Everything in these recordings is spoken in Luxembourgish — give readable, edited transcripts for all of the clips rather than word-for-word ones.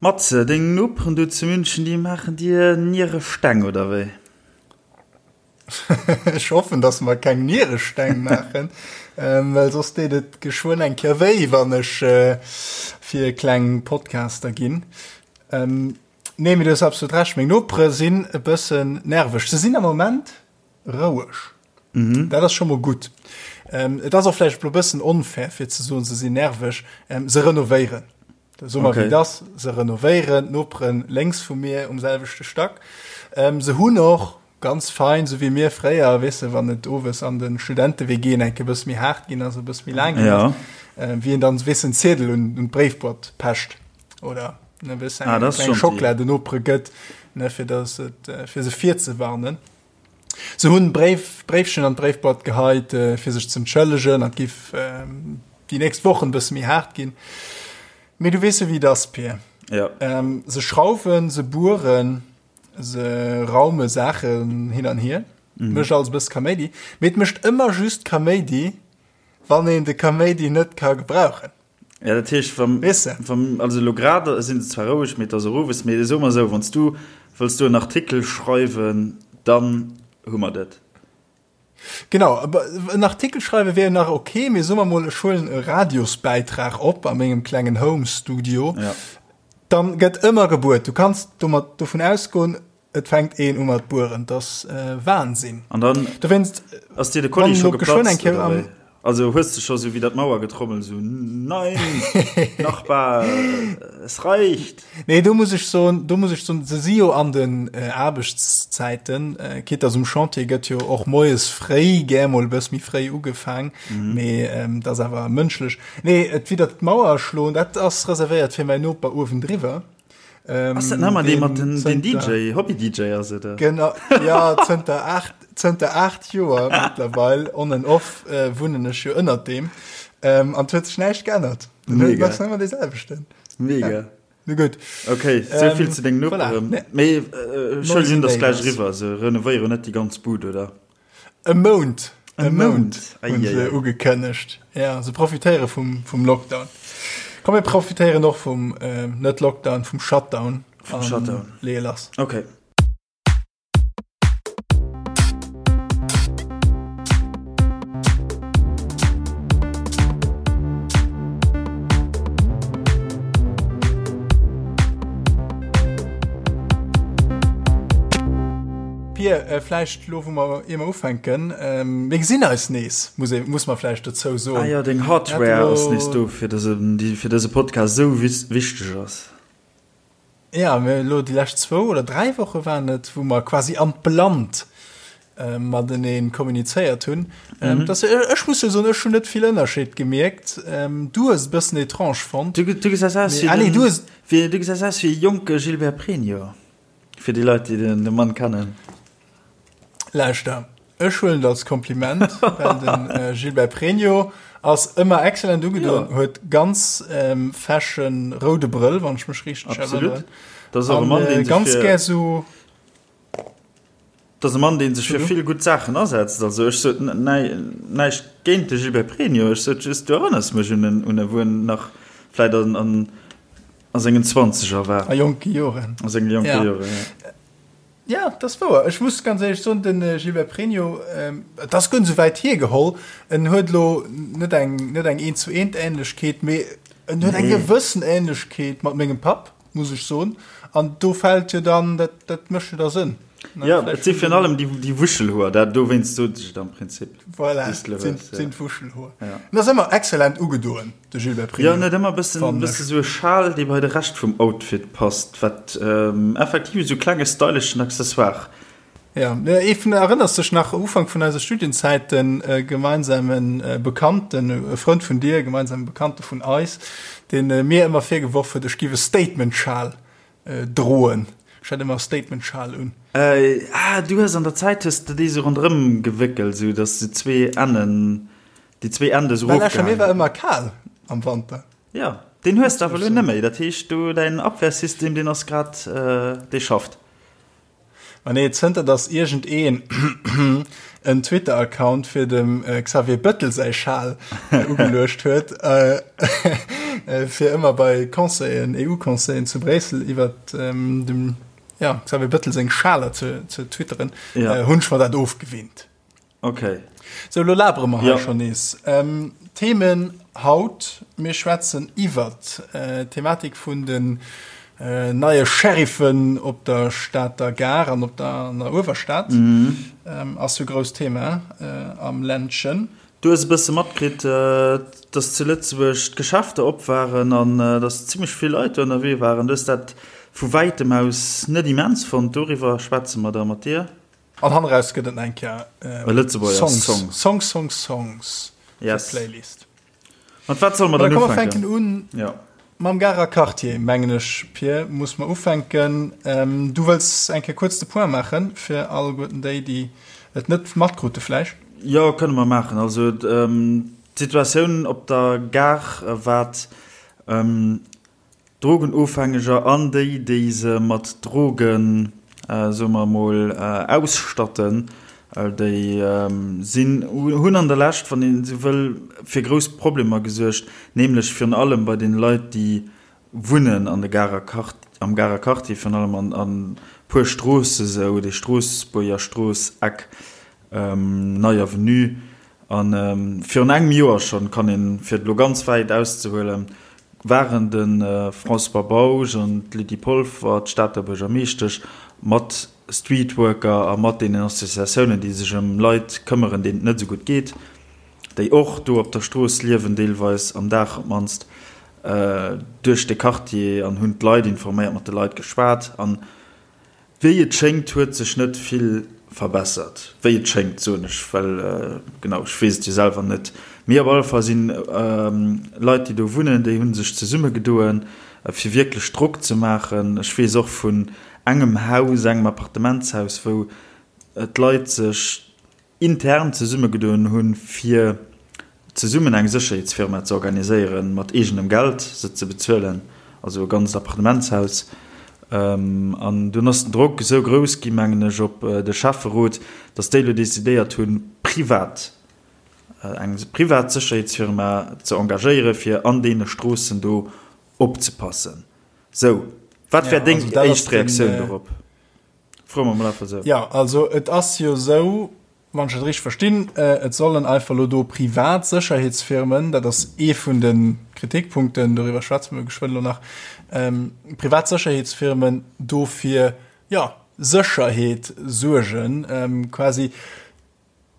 Matze, deng Noperen do zu München, déi maachen dir Nieresteng, oder wéi? Ech hoffen, dass mer keng Nieresteng maachen, well soss deet et geschwënn eng Kéier wéi, wann ech fir kleng Podcaster ginn. Nee, mee du hues absolut Recht, meng Nopere sinn e bëssen nerveg. Se sinn am Moment roueg. Mhm. Dat ass scho mol gutt. Ähm, et ass och vläicht e bëssen onfair, fir ze soen, se sinn nerveg. Ähm, se renovéieren. So mal okay. wéi das se renovéieren, d'Noperen lénks vu mir um selwechte Stack. Ähm, se hunn och ganz fein, so wéi mir fréier, weess de, wann et owes an den Studente-WGen enke bësse méi haart ginn ass, e bësse méi laang ginn ass, ja. ähm, wéi een dann, weess en Ziedel un, un d'Bréifboîte pecht oder ne, weess eng ah, kleng Schockela den Nopere gëtt, ne, fir dass et, äh, fir se virzewarnen. Se hunn Bréif, Bréifchen an d'Bréifboîte geheit, fir sech z'entschëllegen, an et giff déi nächst Wochen e bësse méi haart ginn. Mee du weess jo, wéi et ass, Pir. Ja. Se schrauwen, se bueren, se raume Saachen hin an hier. Mhm. Mécht alles e bësse Kaméidi. Mee et mécht ëmmer just Kaméidi, wann een de Kaméidi net ka gebrauchen. Ja, dat heescht, wann, Weess de? wann, also elo grad sinn se zwar roueg, mee et ass och owes, mee soe mer esou, wann s du wëlls do en Artikel schreiwen, dann hu mer dat. Genau, aber en Artikel schreiwe wär jo nach ok, mee soe mer mol, ech huelen e Radiosbäitrag op a mengem klengen Home-Studio, Ja. dann gëtt ëmmer gebuert. Du kanns domat dovun ausgoen, Et fänkt een u mat bueren, 't ass Wahnsinn. An dann Dowéinst, ass dir de Kolli scho geplatzt, oder wéi? Also hues de scho sou widder d'Mauer getrommelt, sou, Nein, Nachbar, es reicht! Nee, do muss ech soen, do muss ech soen, se si jo an den Aarbechtszäiten, quitte dass um Chantier gëtt jo och moies fréi gär mol e bëss méi fréi ugefaang, mee dat ass awer mënschlech. Nee, et widder d'Mauer schloen, dat ass reservéiert fir mäin Noper uewendriwwer. Ähm, ass dat nëmmer dee mat den, den DJ, Hobby-DJ ass et? Genau, ja, zënter 8, zënter 8 Joer mittlerweile, on and off, äh, wunnen ech jo ënnert deem. Ähm, an huet sech näischt geännert. Mega. Ass ëmmer dee selwechten. Mega. Ja. Nu gutt. Okay, sou ähm, vill zu deng Noperen. Voilà. Mee äh, Entschuldigung, dass gleich riwwer, se renovéieren net déi ganz Bud, oder? E Mount, e Mount hunn se ugekënnegt. Ja, se profitéiere vum, vum Lockdown. Komm, mir profitéieren och vum, äh, net Lockdown, vum Shutdown. Vum Shutdown. Leeë lass. Okay. Pir, vläicht elo wou mer, ier mer ufänken, mir gesinn eis nees, muss ee, muss mer vläicht dozou soen. Ah jo, deng Hardware ass nees do, fir dëse, déi fir dëse Podcast esou wichteg ass. Ja, mir elo déi lescht zwou oder dräi Woche waren et, wou mer quasi an d'Blannt matenee kommunizéiert hunn. Mhm. Dass, ech muss jo soen, ech hunn net vill Ënnerscheed gemierkt. Du hues et e bëssen étrange fonnt. Du, du gesäis aus wéi ah, nee, du hues, wéi, du gesäis aus wéi e jonke Gilbert Pregno. Fir déi Leit, déi den de Mann kennen. Lauschter, ech huelen et als Kompliment, well den äh, Gilbert Pregno ass ëmmer excellent ugedoen, ja. huet ganz ähm, fashion roude Brëll, wann ech mech richteg erinneren. Das ass och e Mann, deen sech ganz gär so Das ass e Mann, deen sech fir vill gutt Saachen asetzt. Also ech sot näischt géint de Gilbert Pregno, ech sot just, du erënners mech un en, un e wou en nach vläit an, an A sengen Zwanzeger war. A jonke Joren. A senge jonke ja. Joren, ja. Ja, dat ass wouer. Ech muss ganz éierlech soen, den Gilbert Pregno, et ass guer net esou wäit hiergeholl, en huet elo net eng, net eng eent zu eent Ähnlechkeet, mee en huet eng gewëssen Ähnlechkeet mat mengem Papp, muss ech soen. An do fält jo dann, dat, dat mécht jo da Sënn. Ja, et si virun allem déi, déi Wuschelhoer, dat dowéinst sot ech et am Prinzip. Voilà, sinn, sinn d'Wuschelhoer. Ja. En ass ëmmer excellent ugedoen. De Gilbert Pregno. Jo, en huet ëmmer e bëssen, bësse sou e Schal, dee bei de Rescht vum Outfit passt, wat effektiv esou klenge styleschen Accessoire. Ja, ee vun, erënners dech nach, Ufank vun eiser Studienzäit, e gemeinsame Bekannten, e Frënd vun dir, e gemeinsame Bekannte vun eis, dee mir ëmmer virgeworf huet, ech giff e Statement-Schal droen. Ech hat ëmmer e Statement-Schal un. Ah, du hues an der Zäit hues de déi sou ronderëm gewéckelt, sou datt se zwee Ennen Déi zwee Ende sou Well Escher, mir war ëmmer kal am Wanter. Ja, deen hues de awer elo net méi. Dat heescht, do däin Abwehrsystem, deen ass grad, dee schafft. Ma nee, zënter datt iergendeen en Twitter-Account fir dem Xavier Bëttel säi Schal ugeluecht huet. fir ëmmer bei Conseillen, EU-Conseillen zu Bréissel iwwert dem Xavier Bettel seng Schaler ze twitteren, hunn ech mer dat ofgewinnt. Ok. Sou, elo labere mer hei schonn nees. Themen haut, Mir schwätzen iwwert d'Thematik vun den neie Sheriffen op der Stater Gare an op der an der Uewerstad. Ass jo grousst Thema am Ländchen. Du hues e bësse matkritt, dass zu Lëtzebuerg d'Geschäfter op waren an dass zimmlech vill Leit do ënnerwee waren. Du hues dat vu wäitem aus net immens fonnt. Doriwwer schwätze mer da mat dir. An hanneraus gëtt et nach eng Kéier E Lëtzebuerger Songs, Song. Songs, Songs, Songs fir Yes. d'Playlist. Mat wat solle mer Dann dann komm mer fänken ufänken? un Ja. mam Garer Quartier, mengen ech, Pir, muss mer ufänken. Ähm, du wëlls eng Kéier kuerz de Point maachen, fir alleguerten déi, déi et net matkrute vläicht. Jo, kënne mer maachen. Also d'Situatioun op der Gare, wat Drogenofhängeger an déi, déi se mat Drogen, soe mer emol, ausstatten, déi sinn, hunn an der Lescht, wann een esou wëll, fir grouss Problemer gesuergt, nämlech virun allem bei deene Leit, déi wunnen an de Garer Quart-, am Garer Quartier, virun allem an an puer Stroosse sou, déi Stroossbuerger Strooss, Eck Nei Avenue. A virun engem Joer schonn, kann een, fir et elo ganz wäit auszehuelen, waren de François Bausch an d'Lydie Polfer, d'Stater Buergermeeschtesch, mat Streetworker a mat deenen Associatiounen, déi sech ëm Leit këmmeren, deenen et net esou gutt geet, déi och do op der Strooss liewen, deelweis am Dag op d'mannst, duerch de Quartier an hunn d'Leit informéiert, mat de Leit geschwat. An Wéi et schéngt huet sech net vill verbessert. Wéi et schéngt soen ech, well genau ech weess et jo selwer net. Mee op alle Fall sinn Leit déi do wunnen, déi hu sech zesummegedoen fir wierklech Drock ze maachen. Ech weess och vun engem Haus, engem Appartementshaus, wou d'Leit sech intern zesummegedoen hunn, fir zesummen eng Sécherheetsfirma ze organiséieren, mat eegenem Geld se ze bezuelen, also e ganzt Appartementshaus. An dunn ass den Drock esou grouss gi, mengen ech, op de Schäfferot, datt déi elo decidéiert hunn, privat, eng privat Sécherheetsfirma ze engagéieren, fir an deene Stroossen do opzepassen. Sou, wat wär deng éischt Reaktioun dorop? Froe mer mol einfach esou. Jo, also et ass jo esou, wann ech dat richteg verstinn, et sollen einfach elo do privat Sécherheetsfirmen, dat ass ee vun de Kritikpunkten, doriwwer schwätze mer geschwënn elo nach, privat Sécherheetsfirmen do fir, jo, Sécherheet suergen, quasi.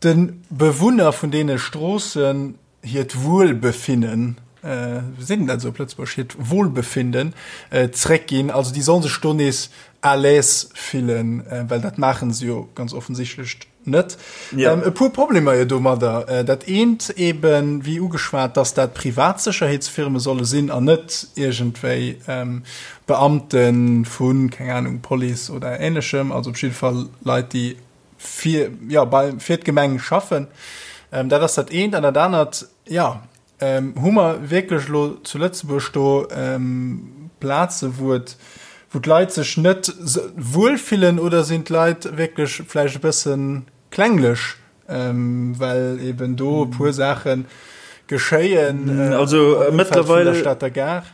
De Bewunner vun deene Stroossen hiert Wuelbefinnen, wéi seet een dat esou op Lëtzebuergesch, hiert Wohlbefinden zréckginn. Also déi solle sech do nees à l'aise fillen, well dat maache se jo ganz offensichtlech net. E puer Problemer jo domadder. Dat eent eben, wéi ugeschwat, dass dat privat Sécherheetsfirme solle sinn an net iergendwéi Beamte vu, keng Anung, Police oder Ähnlechem, also op jidde Fall Leit, déi fir, ja, bei, fir d'Gemeng schaffen. Ähm, dat ass dat eent. An dat anert, ja, ähm, hu mer wierklech elo zu Lëtzebuerg do ähm, Plaze, wou et, wou d'Leit sech net wuel fillen oder sinn d'Leit wierklech vläicht e bësse klenglech, ähm, well eben do e puer Saache geschéien äh, also, äh, mëttlerweile der Stater Gare?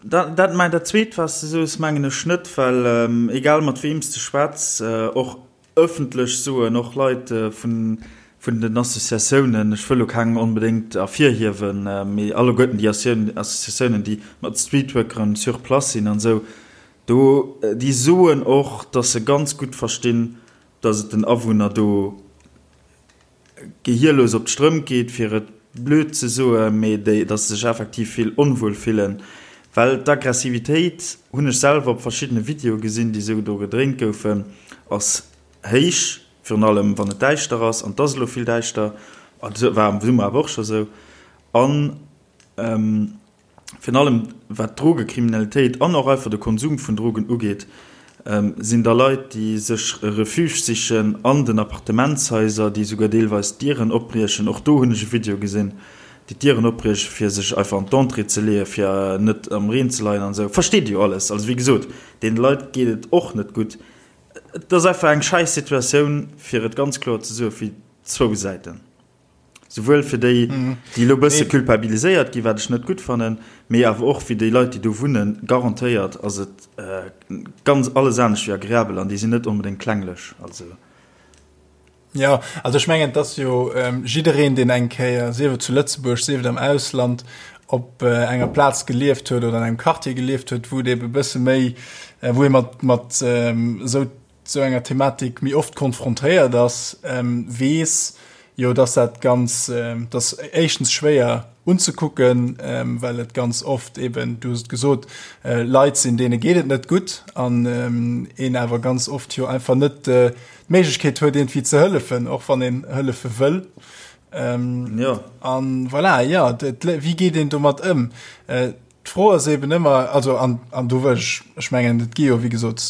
Dat, dat, mein, dat zweet, was du soos, mengen ech net, well ähm, egal mat weem s de schwätz, äh, och ëffentlech soen och Leit vun, vun den Associatiounen, ech wëll elo keng onbedéngt ervirhiewen, mee alleguerten déi Associatiounen, déi mat Streetworkeren sur place sinn an esou, do, déi soen och, datt se ganz gutt verstinn, datt et den Awunner do gehierlos op d'Strëmp geet, fir et blöd ze soen, mee déi, datt se sech effektiv vill onwuel fillen, well d'Aggressivitéit, hunn ech selwer op verschiddene Videoe gesinn, déi esou do gedréint goufen, ass héich, virun allem wann et däischter ass, an et ass elo vill däischter, et war am Summer awer och scho sou, an. Virun allem wat d'Drogekriminalitéit an och einfach de Konsum vun Drogen ugeet, sinn da Leit, déi sech e Refuge sichen an den Appartementshaiser, déi souguer deelweis d'Dieren opbriechen, och do hunn ech e Video gesinn, déi d'Dieren opbriechen, fir sech einfach an d'Entrée ze leeën, fir net am Reen ze leien an esou. Versteet Dir jo alles. Also wéi gesot, deene Leit geet et och net gutt. Et ass einfach eng schäiss Situatioun, fir et ganz kloer ze soen, fir zwou Säiten. Souwuel fir déi, déi elo e bësse culpabiliséiert ginn, wat ech net gutt fannen, mee awer och fir déi Leit, déi do wunnen, garantéiert ass et ganz alles anescht wéi agreabel an déi sinn net onbedéngt klenglech. Also. Jo, also ech mengen, et ass jo jiddereen, deen eng Kéier, sief et zu Lëtzebuerg, sief et am Ausland, op enger Plaz gelieft huet oder an engem Quartier gelieft huet, wou et ebe e bësse méi, wou ee mat, mat esou sou enger Thematik méi oft konfrontéiert ass, weess jo, dass dat ganz, dass éischtens schwéier unzekucken, well et ganz oft eben, du hues et gesot, Leit sinn, deene geet et net gutt an een awer ganz oft jo einfach net d'Méiglechkeet huet, iergendwéi ze hëllefen, och wann een hëllefe wëll. Jo. An voilà, jo, wéi geet een domat ëm? D'Fro ass eben ëmmer, also an, an do wëll ech, ech mengen, et gi jo wéi gesot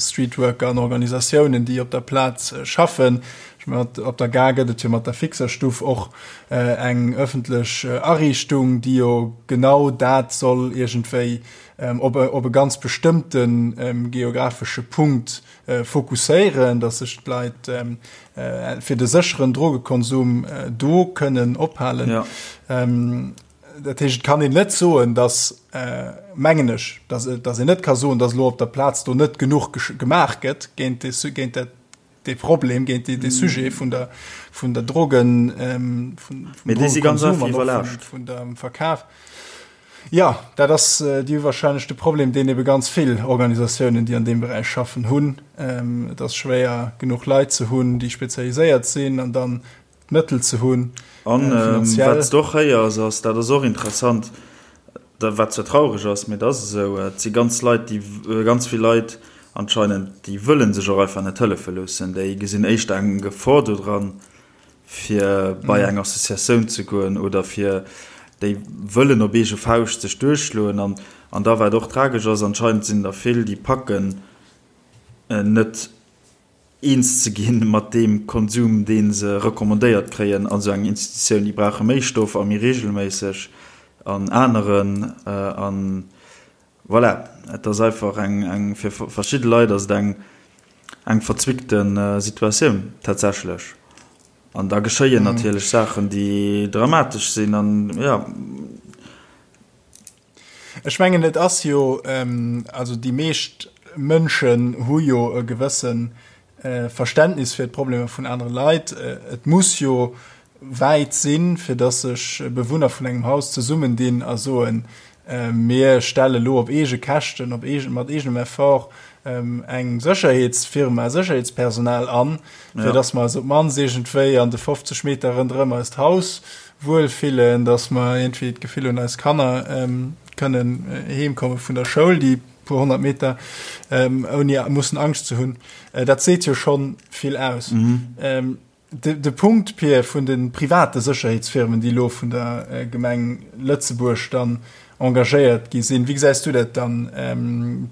Streetworker an Organisatiounen, déi op der Plaz schaffen. Ech mengen, op der Gare gëtt et jo mat der Fixerstuff och eng ëffentlech Ariichtung, déi jo genau dat soll iergendwéi op e, op e ganz bestëmmte geografesche Punkt fokusséieren, datt sech d'Leit fir de sécheren Drogekonsum do kënnen ophalen. Ja. Dat heescht, et kann een net soen, datt, mengen ech, datt, datt een net ka soen, datt elo op der Plaz do net genuch gemaach gëtt géint dee, géint dat, dee Problem, géint dee, dee Sujet vun der, vun der Drogen, vun, vum Drogenkonsum an och vun, vun dem Verkaf. Jo, dat ass déi wahrscheinlech de Problem, deen ebe ganz vill Organisatiounen, déi an deem Beräich schaffen, hunn. Et ass schwéier, genuch Leit ze hunn, déi spezialiséiert sinn an dann d'Mëttel ze hunn. An wat s de och héiers, ass, dat ass och interessant, wat zwar traureg ass, mee et ass esou, et si ganz Leit, déi, ganz vill Leit anscheinend, déi wëlle sech och einfach net hëllefe loossen. Déi gesinn éischter eng Gefor dodran, fir bei eng Associatioun ze goen oder fir, déi wëllen op eege Fauscht sech duerchschloen. An, an da wat och tragesch ass, anscheinend sinn der vill, déi packen net, eens ze ginn mat deem Konsum, dee se recommandéiert kréien an esou enger Institutioun. Déi brauche méi Stoff a méi regelméisseg an aneren. An voilà, et ass einfach eng, eng, fir verschidde Leit ass et eng, eng verzwickte Situatioun tatsächlech. An da geschéien natierlech Saachen, déi dramatesch sinn an, jo. Ech mengen, et ass jo, also déi meescht Mënschen hu jo e gewësse Verständnis fir d'Problemer vun anere Leit. Et muss jo wäit sinn, fir datt sech Bewunner vun engem Haus zesummendinn a soen, Mir stelle lo op eege Käschten, op eegen, mat eegenem Effort eng Sécherheetsfirma, Sécherheetspersonal an, fir datt mer eis op d'mannst iergendwéi an de 50 Meter ronderëm eist Haus wuel fillen, dass mer iergendwéi d'Gefill hunn, eis Kanner kënnen heem komme vun der Schoul, déi puer 100 Meter, ouni mussen Angscht ze hunn. Dat seet jo schonn vill aus. De Punkt, Pir, vun de private Sécherheetsfirmen, déi elo vun der Gemeng Lëtzebuerg dann engagéiert gi sinn, wéi gesäis du dat dann?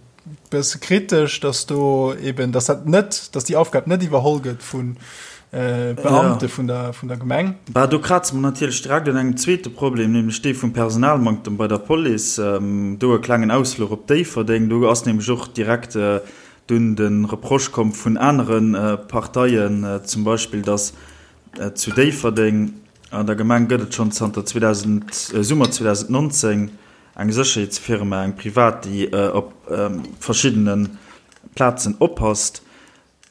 Bësse kritesch, dass do eben, dass dat net, dass déi Aufgab net iwwerholl gëtt vu Beamte vun der, vun der Gemeng. Bah, do kraze mer natierlech direkt un engem zweete Problem, nämlech dee vum Personalmanktem bei der Police. Do e klengen Ausfluch op Déifferdeng. Do ass nämlech och direkt dunn de Reproche komm vun anere Parteien, zum Beispill, dass zu Déifferdeng an der Gemeng gëtt et schonn zanter 2000, Summer 2019, Eng Sécherheetsfirma, eng privat, déi op verschiddene Plazen oppasst.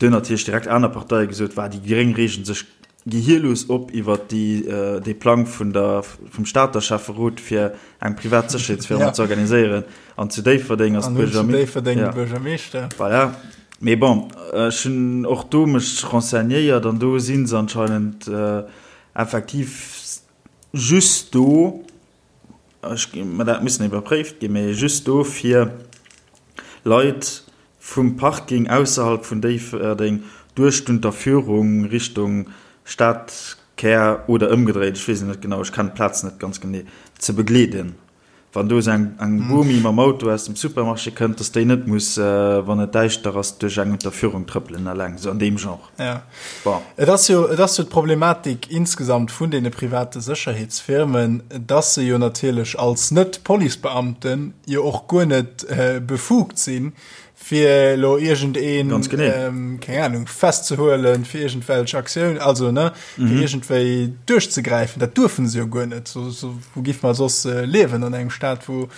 Do hunn natierlech direkt aner Parteie gesot, Wa, déi Gréng reegen sech gehierlos op iwwer dee Plang vun der, vum Stater Schäfferot, fir eng privat Sécherheetsfirma ze organiséieren. An zu Déifferdeng ass d'Buergermeeschter. Voilà. Mee bon, ech hunn och do mech renseignéiert an do si se anscheinend effektiv just do, Ech, mä dat muss nach iwwerpréift ginn, mä just do fir Leit vum Parking ausserhalb vun Déifferdeng duerch d'Unterführung Richtung Stadkär oder ëmgedréit, ech weess et net genau, ech kennen d'Plaz net ganz genee, ze begleeden. Wann do esou eng Bomi mam Auto aus dem Supermarché kënnt, dass déi net muss, wann et däischter ass, duerch eng Unterführung trëppelen eleng, esou an deem Genre. Ja. Bon. Et ass jo, et ass jo d'Problematik insgesamt vun deene private Sécherheetsfirmen, dass se jo natierlech als Net-Policebeamten jo och guer net befugt sinn. Fir elo iergendeen, Ganz genee. keng Ahnung, festzehuelen fir iergendwelch Aktioun, also ne, fir iergendwéi duerchzegräifen. Dat duerfen se jo guer net. So, so, wou giff mer soss liewen an engem Staat, wou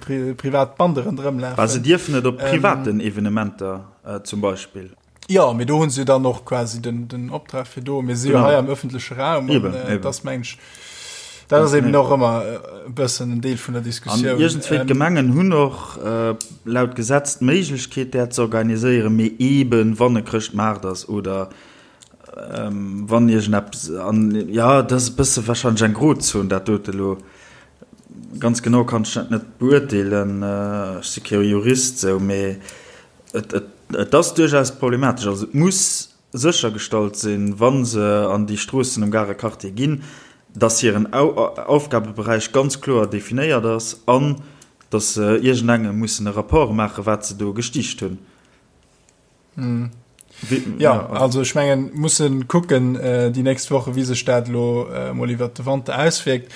pri privat Bande ronderëm Bah, se lafen? dierfen et op privaten Evenementer zum Beispill. Jo, mee do hunn se jo dann och quasi den, den Optrag fir do. Mir si jo Genau. hei am öffentleche Raum an Eben, äh, eben. das meng ech, dat ass eben och ëmmer e bëssen en Deel vun der An Diskussioun. iergendswéi Ähm, d'Gemengen hunn och äh, laut Gesetz d'Méiglechkeet, dat ze organiséieren, mee eben wann e Chrëschtmaart ass oder ähm, wann iergendeppes an ja, dat ass e bësse wahrscheinlech eng Grozon, dat dote lo. Ganz genau kann ech dat net beurteelen, äh, ech si kee Jurist sou, mee Et, et, et ass duerchaus problematesch. Also et muss séchergestallt sinn, wa se an déi Stroossen um Garer Quartier ginn, dass hiren Aufgabeberäich ganz kloer definéiert ass an dass se iergendengem mussen e Rapport maachen, wat se do gestiicht hunn. Jo, also ech mengen, musse kucken déi nächst Woche wéi sech dat elo emol iwwert de Wanter auswierkt.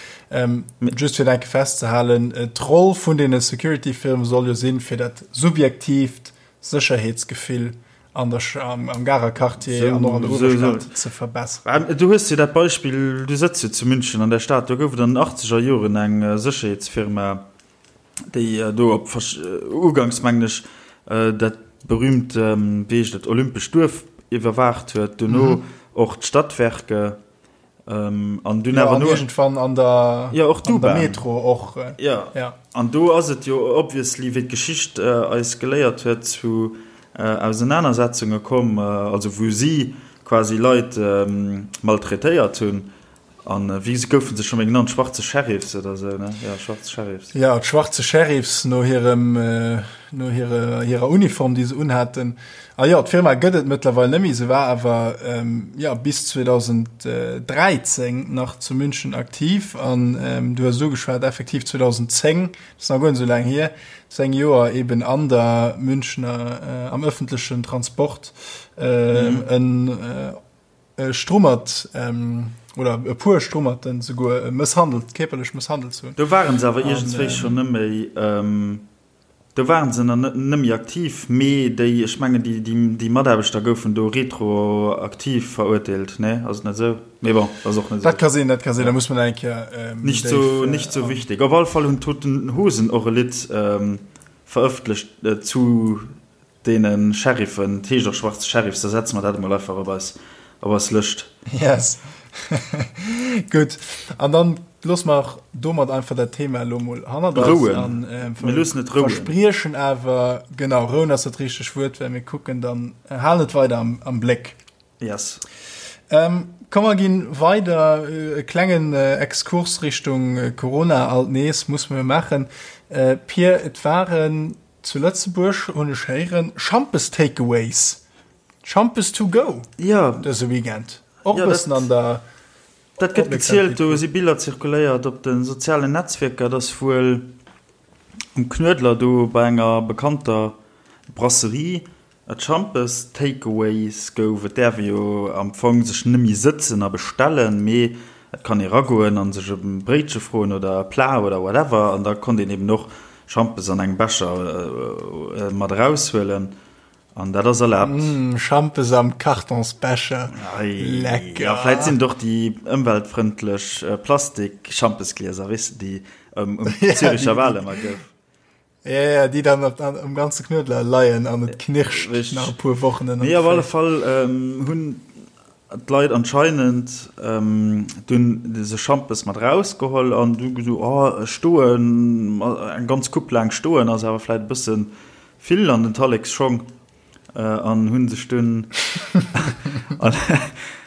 Just fir et eng Kéier festzehalen, d'Roll vun deene Security-Firme soll jo sinn, fir dat subjektiivt Sécherheetsgefill an der, am Garer Quartier an och an der Uewerstad ze verbesseren. Du hues jo dat Beispill, du sëtz jo zu München an der Stad, do gouf et an den achtzeger Joren eng Sécherheetsfirma, déi do op uganks mengen ech dat berühmt, wéi heescht et, Olympescht Duerf iwwerwaacht huet, dono och d'Stadwerke. Ähm, an dunn ja, awer an no irgendwann an der, ja, och an der d'U-Bahn. Metro och. Äh, Ja. ja. An do ass et jo obviously, wéi d'Geschicht äh, eis geléiert huet, zu äh, Ausenanersetzunge komm, äh, also wou si quasi Leit ähm, maltraitéiert hunn. An äh, wéi goufen se scho méi genannt? Schwarze Sheriffs oder sou, ne? Ja, schwarze Sheriffs. Ja, d'schwarze Sheriffs no hirem, äh, no hire, hirer Uniform, déi se unhaten. A jo, d'Firma gëtt et mëttlerweil net méi, se war awer jo bis 2013 nach zu München aktiv an du hues et ugeschwat, effektiv 2010, dat ass nach guer net esou laang hier, 10 Joer eben an der Münchner, am ëffentlechen Transport e Strummert oder e puer Strummerten souguer mësshandelt, kierperlech mësshandelt ze hunn. Do waren se awer iergendswéi schonn net méi. Do waren se nach net méi aktiv, mee déi, ech mengen déi, déi Mataarbechter goufen do retroaktiv verurteelt, nee, ass et net esou? Mee bon, ass och net esou. Dat ka sinn, dat ka sinn, da muss mer nach eng Kéier méi déif. Nicht sou wichtig. Op alle Fall hunn d'Toten Hosen och e Lidd verëffentlecht zu Deene Sheriffen, et heescht och Schwarze Sheriffs, da setze mer dat emol einfach op eis, op eis Lëscht. Yes. Gutt. An dann loosse mer domat einfach dat Thema elo mol hannert eis. Rouen. An, äh, Mir loossen et rouen. Verspriechen awer, genau, rouen ass dat richteg Wuert, well mir kucken dann, halen et weider am, am Bléck. Yes. Ähm, komm mer ginn weider, e klengen Exkurs Richtung Corona alt nees muss mer maachen. Äh, Pir, et waren Zu Lëtzebuerg hunn ech héieren, Schampes Takeaways, Schampes to go Ja. dëse Weekend. Och e Ja, bëssen dat, an der dat gëtt gezielt, Opmierksamkeet do kritt. si Biller zirkuléiert op de sozialen Netzwierker, dass wuel um Knuedler do bei enger bekannter Brasserie Et Schampes Takeaways gouf. Et däerf ee jo am Fong sech nëmme sëtzen a bestellen, mee et kann ee ragoen a sech e Bréitche froen oder e Plat oder whatever an da konnt een eben och Schampes an engem Becher mat eraushuelen an dat ass erlaabt. Mmh, Schampes am Kartonsbecher, lecker! Jo, vläit sinn et och déi ëmweltfrëndlech Plastik-Schampesglieser, weess de, déi um Züricher Wal ëmmer gouf. Ja, ja, déi dann op, an, um ganze Knuedler leien an et knirscht Richtig. nach e puer Wochen ënnert Nee, op alle Féiss. Fall ähm, hunn d'Leit anscheinend ähm, dunn dëse Schampes mat rausgeholl an du gesot, oh, stoen, eng ganz Coupe laang stoen ass awer vläit e bësse vill an den Tallekschong. An hunn sech dunn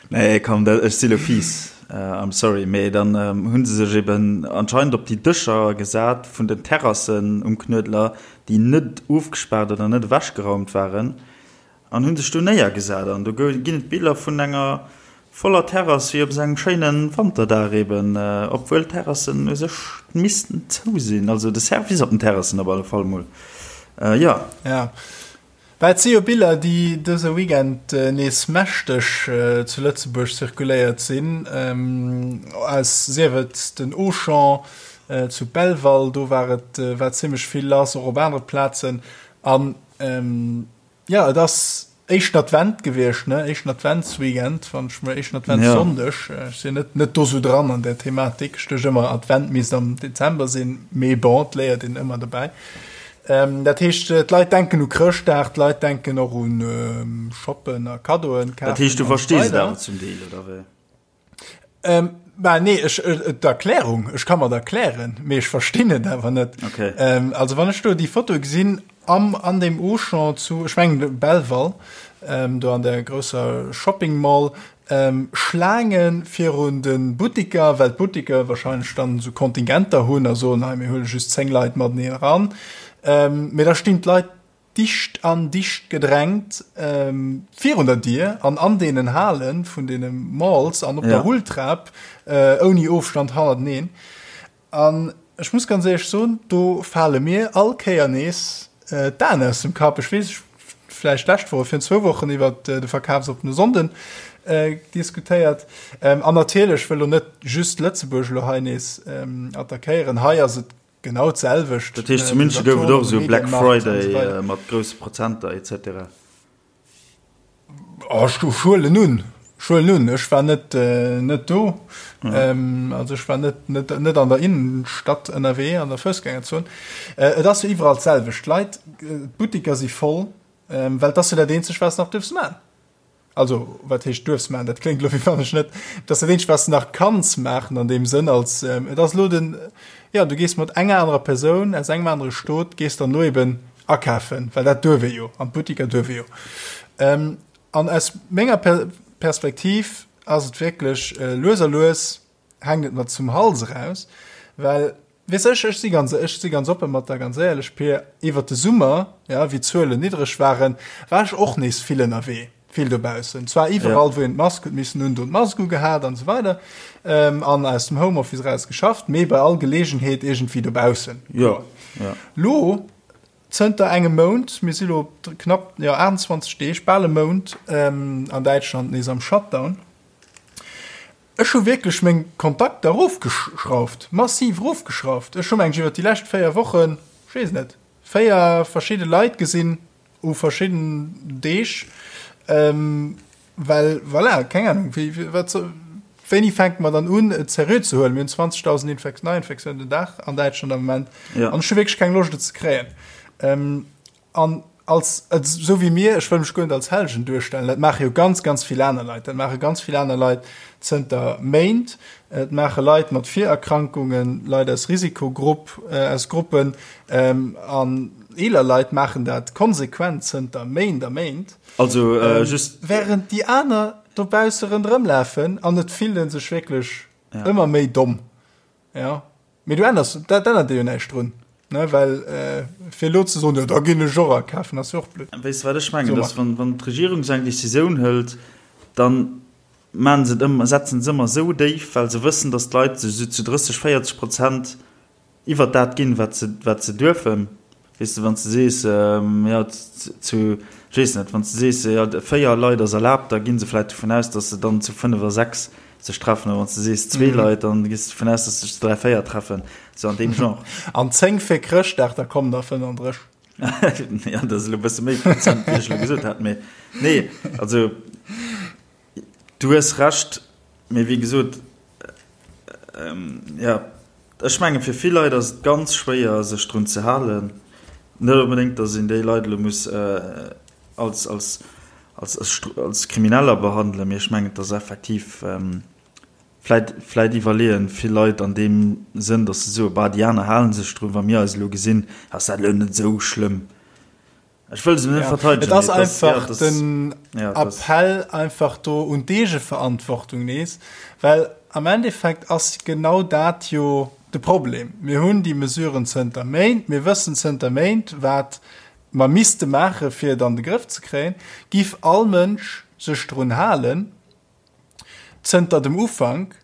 Nee komm dat ech si lo fies, I'm sorry, mee dann hunn se sech eben anscheinend op déi Dëscher gesat vun den Terrassen um Knuedler, déi net ofgespaart oder net ewechgeraumt waren, an hunn sech do néiergesat. An do ginn et Biller vun enger voller Terrass wéi op esou engem schéine Wanterdag eben, obwuel d'Terrassen u sech missten zou sinn, also de Service op den Terrassen op alle Fall mol, jo. Ja, Bah, et si jo Biller, déi dëse Weekend nees mächteg zu Lëtzebuerg zirkuléiert sinn, aus, sief et den Auchan zu Belval, do war et, war zimlech vill lass, och op anere Plazen. An. Jo, et ass éischten Advent gewiescht, ne? Éischten Adventsweekend, wann ech mech, éischten Adventssonndeg. Ech sinn net, net do sou dran an där Thematik. Ech duecht ëmmer, Advent misst am Dezember sinn, mee bon, et léiert een ëmmer dobäi. Dat heescht, d'Leit denken u Chrëschtdag, d'Leit denken och un Shoppen a Kaddoen kafen. Dat heescht, du verstees et awer zum Deel, oder wéi? Ähm, bah, nee, ech, äh, d'Erklärung, ech kann mer d'erklären, mee ech verstinn et awer net. Okay. Ähm, also wann ech do déi Foto gesinn am, an dem Auchan zu, ech mengen Belval, ähm, do an der grousser Shopping Mall, ähm, Schlaange virun de Buttiker, well d'Buttiker wahrscheinlech dann esou Kontingenter hunn a soen, hei mir huele just 10 Leit mateneen eran. Ähm, mee da stinn d'Leit dicht an dicht gedrängt virun der Dier an an deenen Hale vun deene Malls an op der Rulltrap ouni Ofstand hannerteneen. An ech muss ganz éierlech soen, do fale mir all Kéier nees d'Aen aus dem Kapp. Ech weess, ech vläicht d'lescht Woch, virun zwou Wochen iwwert de verkafsoppene Sonnden diskutéiert. An natierlech, ech wëll elo net just Lëtzebuerg elo hei nees attackéieren, hei ass et Genau d'selwecht. Dat heescht zu München gouf et och esou Black Friday mat grousse Prozenter etc. Oh, ech huelen un, ech huelen un, ech war net net do, also ech war net net net an der Innenstadt ënnerwee an der Foussgängerzon. Et ass jo iwwerall d'selwecht, d'Leit, d'Buttiker si voll, well et ass jo dat eenzegt wat s nach duerfs man. Also, wat heescht duerfs maachen? Dat kléngt elo wéi wann ech net, et ass dat eenzegt wat s de nach kanns maachen an deem Sënn als, et ass elo den, jo, du gees mat enger anerer Persoun aus engem anere Stot gees dann elo eben akafen, well dat duerf ee jo, an d'Buttiker duerf ee jo. An aus menger Perspektiv ass et wierklech lues a lues hänkt et mer zum Hals eraus, well Weess ech, ech si ganz, ech si ganz oppe mat der, ganz éierlech, Pir, iwwert de Summer, ja, wéi d'Zuelen niddreg waren, war ech och nees vill ënnerwee, vill dobaussen. Zwar iwwerall, wou een d'Mask huet missen hunn, do d'Mask ugehat an esou weider, an aus dem Homeoffice eraus geschafft, mee bei all Geleegenheet iergendwéi dobaussen. Jo, jo. Lo, zënter engem Mount, mir si lo knapp, jo, 28 Deeg, bal e Mount, an Däitschland nees am Shutdown. Ech hu wierklech meng Kontakter erofgeschrauft, massiv erofgeschrauft. Ech hu mengen ech iwwer déi lescht 4 Wochen, ech weess net, 4 verschidde Leit gesinn u verschidden Deeg, well voilà, keng Ahnung, wéi, wat soll, wéini fänke mer dann un et seriö ze huelen? Mir hunn 20.000 Infek-, Neiinfektiounen den Dag an Däitschland am Moment an ech hu wierklech keng Loscht et ze kréien. An als, esou wéi mir, ech wëll mech guer net als Hellegen duerstellen, dat maache jo ganz, ganz vill aner Leit, dat maache ganz vill aner Leit zënter Méint, et maache Leit mat Virerkrankungen, Leit aus Risikogrupp, aus Gruppen an eeler Leit maachen dat konsequent zënter Méint a Méint. Also just. Während déi aner dobausse ronderëmlafen an et fillt ee sech wierklech ëmmer méi domm. Jo. Mee du änners, dat ännert dir jo näischt drun, ne? Well fir elo ze soen, jo da ginn ech och akafen, ass jo och blöd. Weess de wat ech mengen, dass wann, wann d'Regierung esou eng Decisioun hëlt, dann maachen se et ëmmer, setzen se ëmmer esou déif, well se wëssen, dass d'Leit sech esou zu 30, 40 Prozent iwwert dat ginn, wat se, wat se duerfen. Weess de, wann s de sees, jo, zu, ech weess net, wann s de sees, jo, 4 Leit ass erlaabt, da gi se vläicht dovun aus, datt se dann zu 5 a 6 sech treffen. Oder wann s de sees zwee Leit, dann gees de dovun aus, datt sech zu 3, 4 treffen. Sou an deem Genre. An 10 fir Chrëschtdag, da kommen der 35. Jo, dat ass elo e bësse méi Prozent, wéi ech elo gesot hat. Mee nee, also du hues Recht, mee wéi gesot, jo, ech menge fir vill Leit ass et ganz schwéier, sech drun ze halen. Net onbedéngt, datt een déi Leit elo muss als, als, als, als Krimineller behandelen, mee ech mengen, et ass effektiv, vläit, vläit iwwerleeën vill Leit an deem Sënn, datt se soen, bah, déi aner hale sech drun, wa mir eis elo gesinn, ass dat elo net esou schlëmm. Ech wëll se net verteidegen. Et ass einfach den Appell einfach do un d'Eegeverantwortung nees, well am Endeffekt ass genau dat jo de Problem. Mir hunn déi Mesuren zënter Méint, mir wëssen zënter Méint, wat mer misste maache fir et an de Grëff ze kréien. Giff all Mënsch sech drun halen zënter dem Ufank,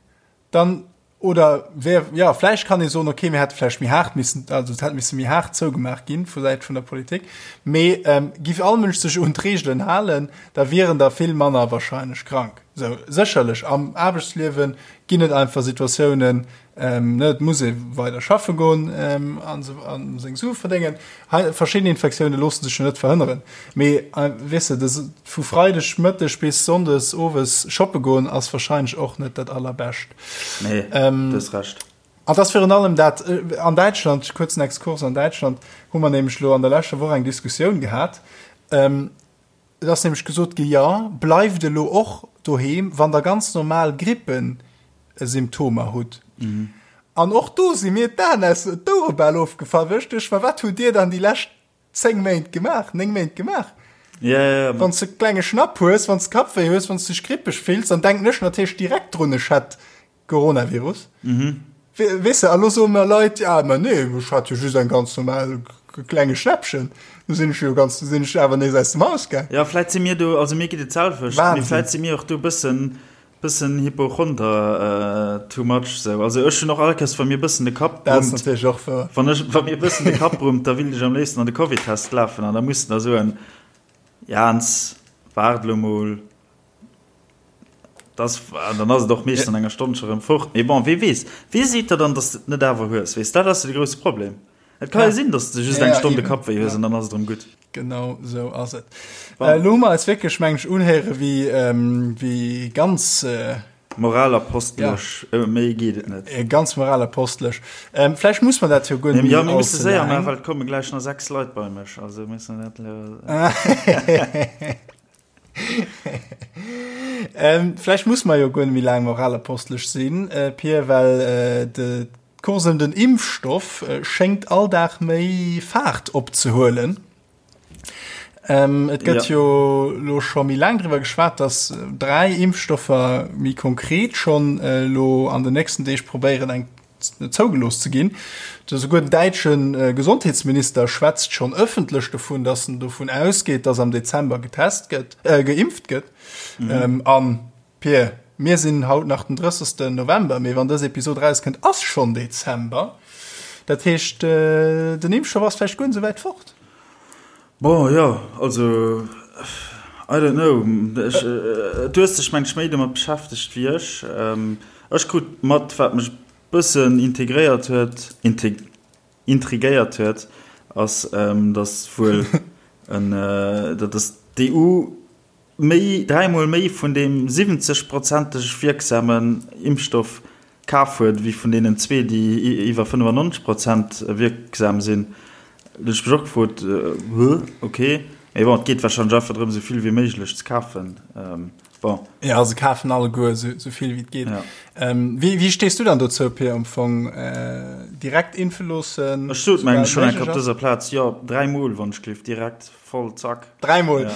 dann Oder wär, jo, vläicht kann ee soen, okay, mir hätte vläicht méi haart missen, also et hätt misse méi haart zougemaach ginn vu Säit vun der Politik. Mee giff all Mënsch sech un d'Reegelen halen, da wieren der vill manner wahrscheinlech krank. Sou, sécherlech am Aarbechtsliewe ginn et einfach Situatiounen, ne, et muss ee weider schaffe goen a seng Sue verdéngen. Hei, verschidden Infektioune loosse sech jo net verhënneren. Mee weess de, vu Freideg Mëtteg bis Sonndes owes shoppe goen ass warscheinlech och net dat Allerbescht. Nee, du hues Recht. An et ass virun allem dat, an Däitschland, kuerzen Exkurs, an Däitschland hu mer nämlech elo an der leschter Woch eng Diskussioun gehat, Et ass nämlech gesot gi, jo, bleift elo och doheem, wann der ganz normal Grippesymptomer hutt. An och do si mir d'Aen aus d'Ouere bal ofgefall, well ech duecht mer, wat hutt Dir dann déi lescht 10 Méint gemaach, 9 Méint gemaach? Wann s de e klenge Schnapp hues, wann s de Kappwéi hues, wann s de dech grippeg fills, dann denken ech natierlech direkt drun, ech hätt Coronavirus. Mhm. Weess de, a lo soe mer Leit, ja, ma nee, ech hat jo just eng ganz normal klenge Schnäppchen. Du sinn ech jo ganz, du sinn ech awer nees aus dem Haus gaang. Ja, vläit si mir do, also mir geet et d'selwecht, mee vläit si mir och do bëssen, bëssen Hypochonder too much sou. Also ech hunn och all Kéiers, wa mir bëssen de Kapp brummt, Dat ass natierlech och wouer. Wann ech, wa mir bëssen de Kapp brummt, da willt ech am léifsten an de Covid-Test lafen an da muss de da soen, Jans, waart elo mol. Das, an dann ass et och meeschtens an enger Stonn scho rëm fort. Mee bon, wee weess? Wee seet der dann, dass de et net awer hues? Weess, dat ass jo de grousse Problem. Et ka jo sinn, dass de just eng Stonn de Kapp wéi hues an dann ass et erëm gutt. Genau esou ass et. Elo hu mer eis wierklech, meng ech, unhéiere wéi, wéi ganz. Moralapostelesch, méi geet et net. Ganz moralapostelesch. Vläicht muss mer dat jo guer net méi allze laang. Jo, mir musse séier maachen, well et komme gläich nach 6 Leit bei mech. Also musse mer dat elo. Ähm, vläicht muss mer jo guer net méi laang moralapostelesch sinn, äh, Pir, well äh, de d'Course ëm den Impfstoff äh, schéngt all Dag méi Faart opzehuelen. Ähm, et gëtt ja. jo lo scho méi laang driwwer geschwat, dass äh, dräi Impfstoffer méi konkret schonn äh, lo an den nächsten Deeg probéieren eng zougelooss ze ginn. Esouguer den däitsche Gesondheetsminister schwätzt schonn ëffentlech dovun, datt en dovun ausgeet, datt am Dezember getest gëtt, äh, geimpft gëtt. Mhm. An, Pir, mir sinn haut nach den 30. November, mee wann dës Episod erauskënnt, ass schonn Dezember. Dat heescht, den Impfstoff ass vläicht guer net esou wäit fort. Bon, jo, also, I don't know. Ech, du hues dech, meng ech, méi domat beschäftegt wéi ech. Ech krut mat, wat mech e bëssen integréiert huet, intrigéiert huet, ass, datt wuel en, datt d'EU méi, dräimol méi vun deem 70 prozenteg wierksamen Impfstoff kaf huet, wéi vun deenen zwee, déi iwwer 95 Prozent wierksam sinn. Do hunn ech mech och gefrot, Huh, ok. Mee bon, et geet warscheinlech einfach drëm, esou vill wéi méiglech ze kafen. Bon. Ja, se kafen alleguer esou vill wéi et geet. Ja. Wéi, wéi stees du dann dozou, Pir, am Fong? Direkt impfe loossen? Ech sot, mengen ech, schonn eng Kéier op dëser Plaz, jo, dräimol, wann ech gleef, direkt. Voll zack. Dräimol. Ja.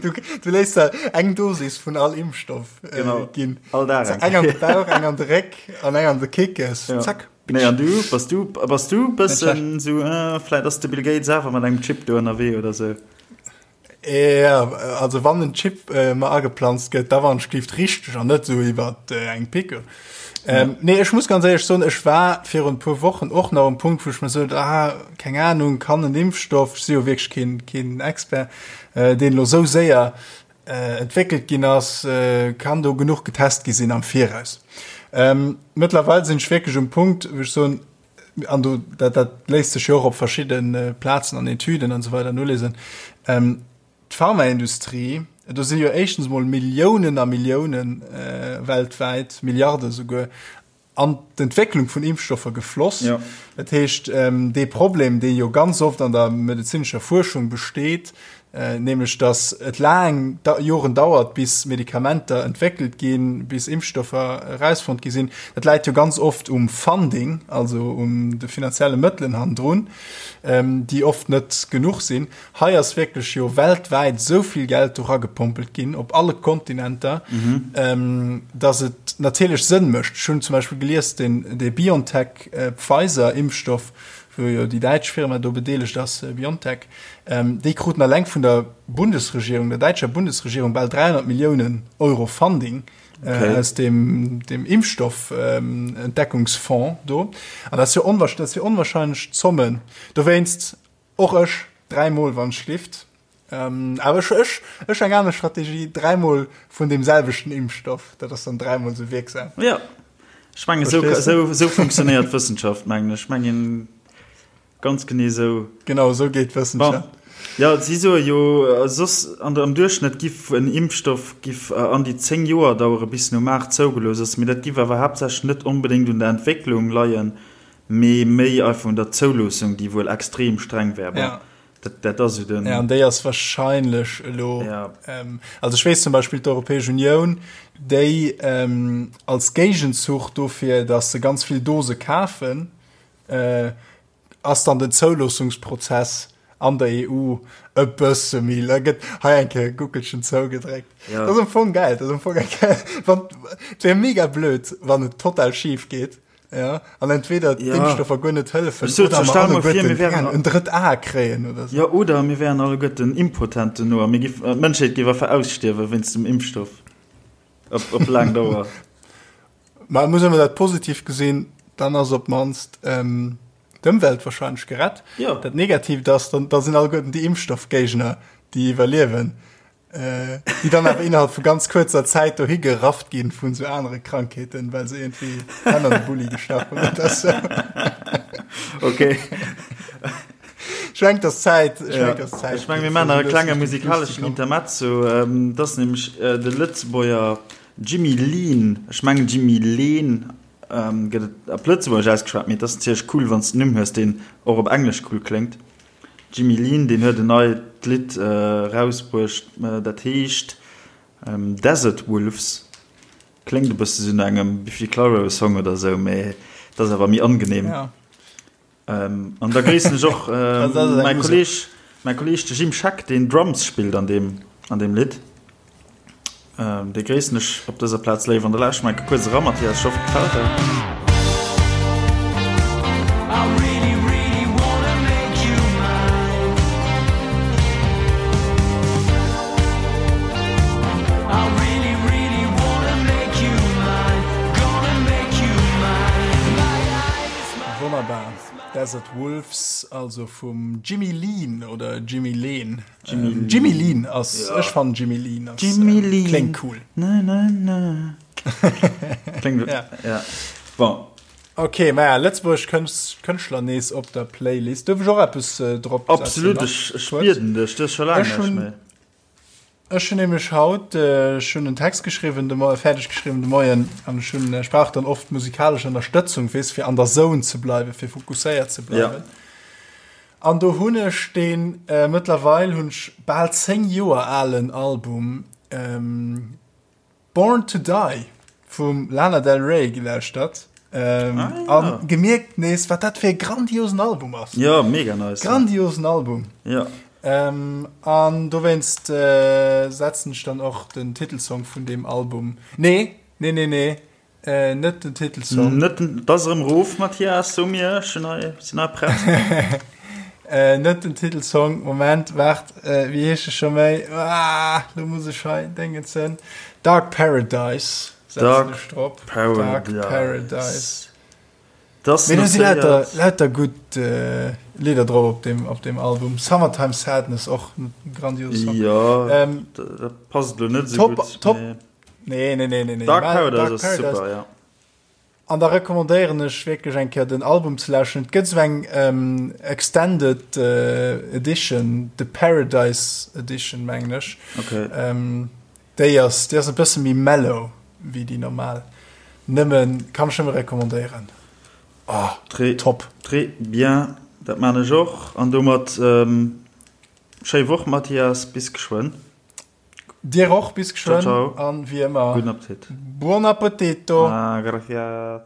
Du, du léiss der eng Dosis vun all Impfstoff äh, genau. ginn. All Dag. Also eng an de Bauch, eng an de Réck an eng an de Kickes. Ja. Zack. Nee, an du, bass du, bass du bëssen so, äh, vläit ass de Bill Gates awer mat engem Chip do ënnerwee oder sou. Ja, also wann en Chip äh, mer ageplanzt gëtt, da wann schlift richteg an net sou iwwer äh, eng Picke. Ähm, nee, ech muss ganz éierlech soen, ech war virun e puer Wochen och nach um Punkt, wou ech mir sot, ah, keng Ahnung, kann en Impfstoff, ech si jo wierklech keen, keen Expert, äh, deen elo sou séier äh, entwéckelt ginn ass, äh, kann do genuch getest gi sinn am Viraus. Ähm, mëttlerweil sinn ech wierklech um Punkt, wou ech soen, an do, dat, dat léisst sech jo och op verschidde Plazen an Etüden an esou weider nolesen, ähm, D'Pharmaindustrie, do si jo éischtens emol Milliounen a Milliounen weltwäit, Milliarde souguer, an d'Entwécklung vun Impfstoffer gefloss. Ja. Dat heescht, dee Problem, dee jo ganz oft an der medezinescher Fuerschung besteet, nämlech datt et laang Joren dauert, bis Medikamenter entwéckelt ginn, bis Impfstoffer erausfonnt gi sinn, dat läit jo ganz oft um Funding, also um de finanzielle Mëttelen hannendrun, déi oft net genuch sinn. Hei ass wierklech jo weltwäit esou vill Geld do ragepompelt ginn, op alle Kontinenter, dass et natierlech Sënn mécht. Ech hunn zum Beispill gelies, deen, dee BioNTech-Pfizer-Impfstoff, wou jo déi däitsch Firma do bedeelegt ass, BioNTech, déi kruten alleng vun der Bundesregierung, der däitscher Bundesregierung, bal 300 Milliounen Euro Funding aus deem, deem Impfstoff-Entdeckungsfonds do. An dat ass jo onwahrscheinlech, dat si onwahrscheinlech Zommen. Dowéinst, Och ech, dräi Mol wann schlift. Ähm, awer ech, ech, ech eng aner Strategie, dräimol vun deem selwechten Impfstoff, dat ass dann dräimol sou wierksam. Ja, ech mengen, sou, sou, sou funktionéiert Wëssenschaft, mengen ech. Mengen, ganz genee sou. Genau, sou geet Wëssenschaft. Bon. Ja, si soe jo, äh, soss an der, am Duerchschnëtt giff en Impfstoff giff äh, an déi 10 Joer dauere bis en um Maart zougelooss ass, mee dat giff awer haaptsächlech net onbedéngt un der Entwécklung leien, mee méi einfach un der Zouloossung, déi wuel extrem streng wär. Bon. Ja. Dat, dat ass jo den. Ja, an déi ass wahrscheinlech elo. Ja. Ähm, also ech weess zum Beispill d'Europäesch Unioun, déi ähm, als Géigenzuch dofir, dass se ganz vill Dose kafen, äh, ass dann den Zouloossungsprozess an der EU e bësse méi la gëtt hei eng Kéier e Guckelchen zougedréckt. Ja. Dat ass am Fong geil, dat ass am Fong eng geil. Wann, et wär mega blöd, wann et total schif geet. Ja, an entweder ja. d'Impfstoffer guer net hëllefen so, oder mer alleguerten, mir wären en drëtt A kréien oder so. Ja, oder mir wären alleguerten impotent duerno a mir giff, äh, d'Mënschheet géif einfach ausstierwe wéinst dem Impfstoff. Op, op laang Dauer. Ma muss ëmmer dat positiv gesinn, dann ass op d'mannst ähm, d'Ëmwelt wahrscheinlech gerett. Ja. Dat Negatiivt ass, dann, da sinn alleguerten déi Impfstoffgéigner, déi iwwerliewen. Äh, déi dann awer innerhalb vu ganz kuerzer Zäit dohi gerafft ginn vun sou anere Krankheeten, well se irgendwie Hänn an de Bulli gestach hunn oder sou. Okay. Ech mengen, dass Zäit, ech Ja. mengen, dass Zäit Ech meng, mir fir maachen nach sou e klenge lues Richtung Schluss ze musikaleschen kommen. Intermezzo. Ähm, dat ass nämlech äh, de Lëtzebuerger Jimmy Leen, ech mengen Jimmy Leen ähm, gëtt et op Lëtzebuergesch ausgeschwat, mee et ass natierlech cool, wann s de en Numm hues, deen och op Englesch cool kléngt. Jimmy Lean, deen huet en neit Lidd erausbruecht, dat heescht Desert Wolves. Kléngt e bësse sou no engem Biffy Clyro Song oder sou, mee et ass awer méi angenehm. An da gréissen ech och mäi Kolleeg, mäi Kolleeg de Jim Scheck, deen Drums spillt an deem, an deem Lidd. Dee gréissen ech op dëser Plaz léif an da lauschteren mer enke kuerz eran, Mathias. Ech hoffen et gefält der. Wonnerbar, Desert Wolves, also vum Jimmy Lean oder Jimmy Leen. Jimmy ähm, Jimmy Lean ass ja. ech fan Jimmy Lean ass, Jimmy ähm, Lean. klingt cool na, na, na. klingt, ja. ja. Bon. Okay, ma ja, Lëtzebuerg Kënschtler nees op der Playlist. Duerf ech och eppes äh, drop Absolut, ech, ech bieden dech, das schon lange Ech hun, ech hun nämlech haut äh, ech hun en Text geschriwwen, de Mo fäerdeg geschriwwen de Moien an ech hun ech brauch dann oft musikalesch Ënnerstëtzung, weess, fir an der Zone ze bleiwen, fir fokusséiert ze bleiwen. Ja. An do hunn ech deen mëttlerweil hunn ech bal 10 Joer alen Album Born to Die vum Lana Del Rey gelauschtert a gemierkt nees wat dat fir e grandiosen Album ass. Jo, mega nice. Grandiosen Album. Jo. An dowéinst setzen ech dann och den Titelsong vun deem Album, nee, nee, nee, nee, Äh, net den Titelsong. Net den, das erëm Ruf, Mathias, so mir, ech sinn hei, sinn hei prett. Äh, net den Titelsong, Moment, waart, äh, wéi heescht e scho méi? Ah, lo muss ech hei Déngen zënn. Dark Paradise setzen Dark ech drop. Paradise. Dark Paradise. Das Mee do si lauter, notéiert. lauter gutt äh, Lidder drop op dem, op dem Album. Summertime Sadness, och en grandiose Song. Ja, Ähm, dat, dat passt lo net esou top, gutt, top. mee. Nee, nee, nee, nee, nee. Dark Mä Paradise Dark ass Paradise. super, ja. An da recommandéieren ech wierklech eng Kéier den Album ze lauschteren. Et gëtt esou eng ähm, Extended äh, Edition, The Paradise Edition, mengen ech. Okay. Ähm, déi ass, déi ass e bësse méi mellow wéi déi normal. Nëmmen, kann ech nëmme recommandéieren. Oh, Très, top. Très bien, dat man ech och. An domat ähm, schéi Woch, Mathias, bis geschwënn. Dir och, bis Ciao, geschwënn ciao. an wéi ëmmer, Gudden Appetit. Buon appetito! Ah, gracias.